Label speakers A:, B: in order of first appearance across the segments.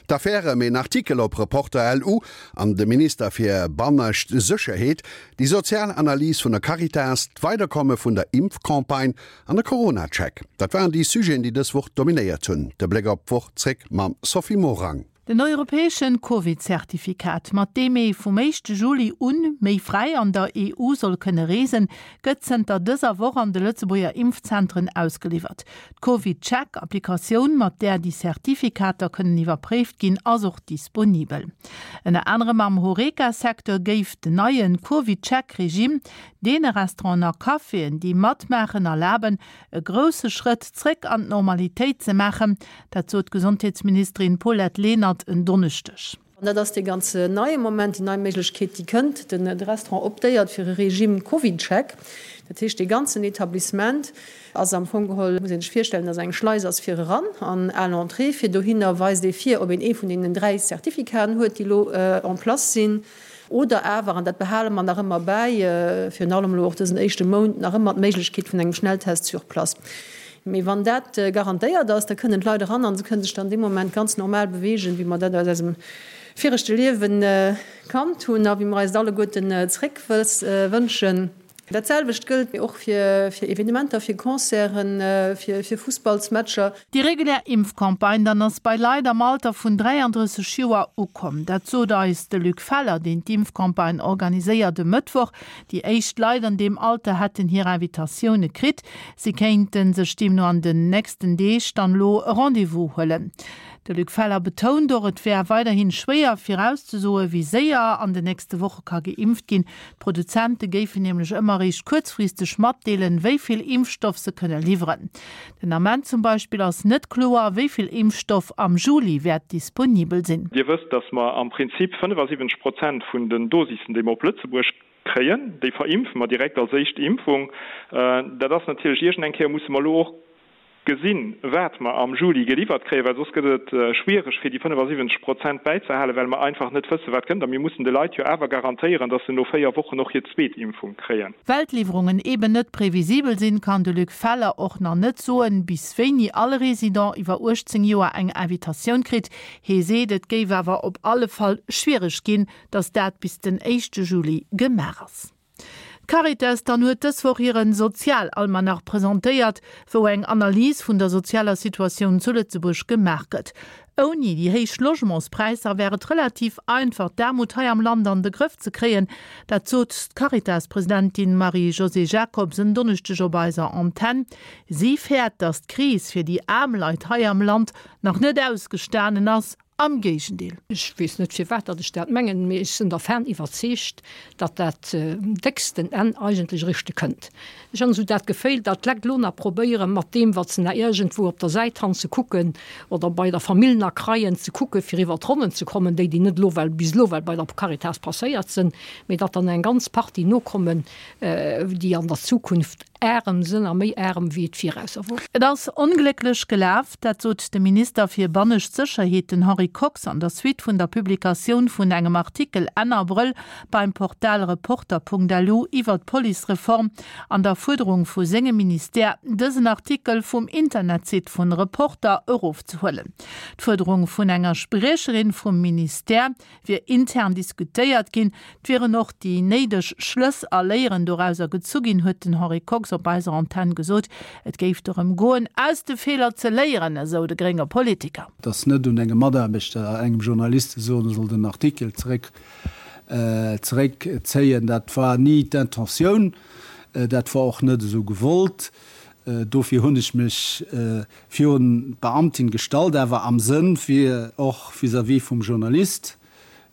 A: D'Affär ëm een Artikel op Reporter LU an de Minister fir bannescht Sécherheet, déi sozial Analys vun der Caritas, d'Weiderkomme vun der Impfcampagne an de Corona-Check. Dat waren déi Sujeten, déi dës Woch dominéiert hunn. De Bléck op d'Woch zréck mam Sophie Morang.
B: Den europäesche Covid-Zertifikat, mat deem ee vum éischte Juli un méi fräi an der EU soll kënne reesen, gëtt zënter dëser Woch an de Lëtzebuerger Impfzentren ausgeliwwert. D'CovidCheck-Applikatioun, mat där déi Zertifikater kënnen iwwerpréift ginn, ass och disponibel. Ënner anerem am Horeca-Secteur géif den neie CovidCheck-Regime deene Restauranten a Caféen, déi matmaachen, erlaben, e grousse Schrëtt zréck an d'Normalitéit ze maachen. Dat sot d'Gesondheetsministerin Paulette Lenert en Donneschdeg.
C: An dat ass dee ganz neie Moment, déi nei Méiglechkeet, déi kënnt. De Restaurant optéiert fir e Regime CovidCheck. Dat heescht, dee ganzen Etablissement ass am Fong geholl, muss ee sech virstellen, dass eng Schleis ass fir eran an à l'entrée fir dohinner weist ee vir, ob een ee vun deenen 3 Certificaten huet, déi elo en place sinn. Oder awer, an dat behale mer nach ëmmer bäi, virun allem elo och dësen éischte Mount, nach ëmmer d'Méiglechkeet vun engem Schnelltest sur place. Mee wann dat garantéiert ass, da kënnen d'Leit eran a se kënnen sech dann dee Moment ganz normal beweegen, wéi mer dat aus eisem viregte Liewe kannt hunn a wéi mer eis et alleguerten zréck wënschen. Dat selwecht gëllt och fir Evenementer, fir Concerten, fir Fussballsmatcher.
B: Déi regulär Impfcampagne dann ass bei Leit am Alter vun 33 Joer ukomm. Dat sot eis de Luc Feller, deen d'Impfcampagne organiséiert, e Mëttwoch. Déi éischt Leit an deem Alter hätten hir Invitatioune kritt. Si kéinte sech deemno an den nächsten Deeg dann elo e Rendez-vous huelen. De Luc Feller betount och, et wär weiderhi schwéier virauszesoen, wéi séier an den nächste Woche ka geimpft ginn. D'Produzente géifen nämlech ëmmer eréischt kuerzfristeg matdeelen, wéi vill Impfstoff se kënne liwweren. Den Ament zum Beispill ass net kloer, wéi vill Impfstoff am Juli wäert disponibel sinn.
D: Dir wësst, dass mer am Prinzip 75 Prozent vun den Dosissen, déi mer op Lëtzebuerg kréien, déi verimpfe mer direkt als éischt Impfung. Dat ass natierlech, iergendeng Kéier musse mer elo och gesinn, wat mer am Juli geliwwert kréien, well soss gëtt et schwiereg, fir déi 75 Prozent bäizehalen, well mer einfach net wëssen, wat kënnt. A mir mussen de Leit jo awer garantéieren, dass se no véier Wochen och hir zweet Impfung kréien.
B: Well d'Liwwerungen eeben net previsibel sinn, kann de Luc Feller och nach net soen, bis wéini all Resident iwwer 18 Joer eng Invitatioun kritt. Hee seet, et géif awer op alle Fall schwiereg ginn, dass dat bis den éischte Juli gemaach ass. D'Caritas dann huet dës Woch hiren Sozialalmanach presentéiert, wou eng Analys vun der sozialer Situatioun zu Lëtzebuerg gemaach gëtt. Ouni déi héich Logementspräisser wär et relativ einfach d'Aarmut hei am Land an de Grëff ze kréien. Dat sot d'Caritas-Presidentin Marie-Josée Jacobs en Donneschdeg op eiser Antenn. Si fäert, datt d'Kris fir déi aarm Leit hei am Land nach net ausgestanen ass Am Géigendeel.
E: Ech weess net firwat datt ech dat mengen, mee ech sinn dervan iwwerzeegt, datt dat décksten Enn eigentlech eréischte kënnt. Ech han esou dat Geféil, datt d'Lekt elo nach probéieren, mat deem wat se nach iergendwou op der Säit han ze kucken oder bei der Famill nach kreien, ze kucken, fir iwwer d'Ronnen ze kommen, déi déi net elo well bis elo well bei der Caritas passéiert sinn, mee datt dann eng ganz Partie nokommen, déi an der Zukunft Aarem sënn a méi aarem wéi et virausser wor.
B: Et ass onglécklech gelaf, dat sot de Minister fir bannescht Sécherheet, den Henri Kox, an der Suite vun der Publikatioun vun engem Artikel Enn Abrëll beim Portal Reporter.lu iwwer d'Policereform an der Fuerderung vu sengem Ministère, dësen Artikel vum Internetsite vun Reporter erofzehuelen. D'Fuerderung vun enger Spriecherin vum Ministère, wier intern diskutéiert ginn, et wieren och déi néideg Schlëss a Léieren dorauser gezu ginn, huet den Henri Kox op eiser Antenn gesot. Et géif dorëm goen, aus de Feeler ze léieren, esou de grénge Politiker.
F: Et ass net un engem Mataarbechter, engem Journalist ze soen, e soll den Artikel zeréck zeréckzéien. Dat war ni d'Intentioun, dat war och net esou gewollt. Dofir hunn ech mech virun d'Beamtin gestallt, awer am Sënn fir och vis-à-vis vum Journalist,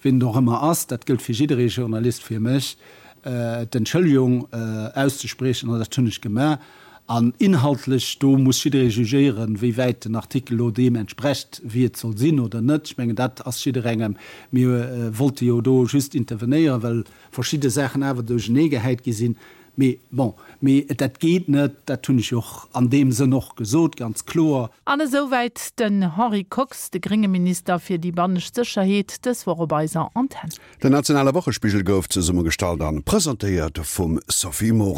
F: wien et och ëmmer ass, dat gëllt fir jidderee Journalist, fir mech d'Entschëllegung auszespriechen, an dat hunn ech gemaach. An inhaltlech, do muss jidderee jugéieren, wéi wäit den Artikel elo deem entsprecht, wéi et soll sinn oder net. Ech mengen, dat ass jidderengem. Mir wollte jo do just intervenéieren, well verschidde Saachen awer duercheneegehäit gi sinn. Mee bon, mee dat geet net, dat hunn ech jo och an deem Sënn och gesot, ganz kloer.
B: An esouwäit den Henri Kox, de grénge Minister fir déi bannescht Sécherheet, dës Woch op eiser Antenn.
A: Den nationale Wochespigel gouf zesummegestallt an presentéiert vum Sophie Morang.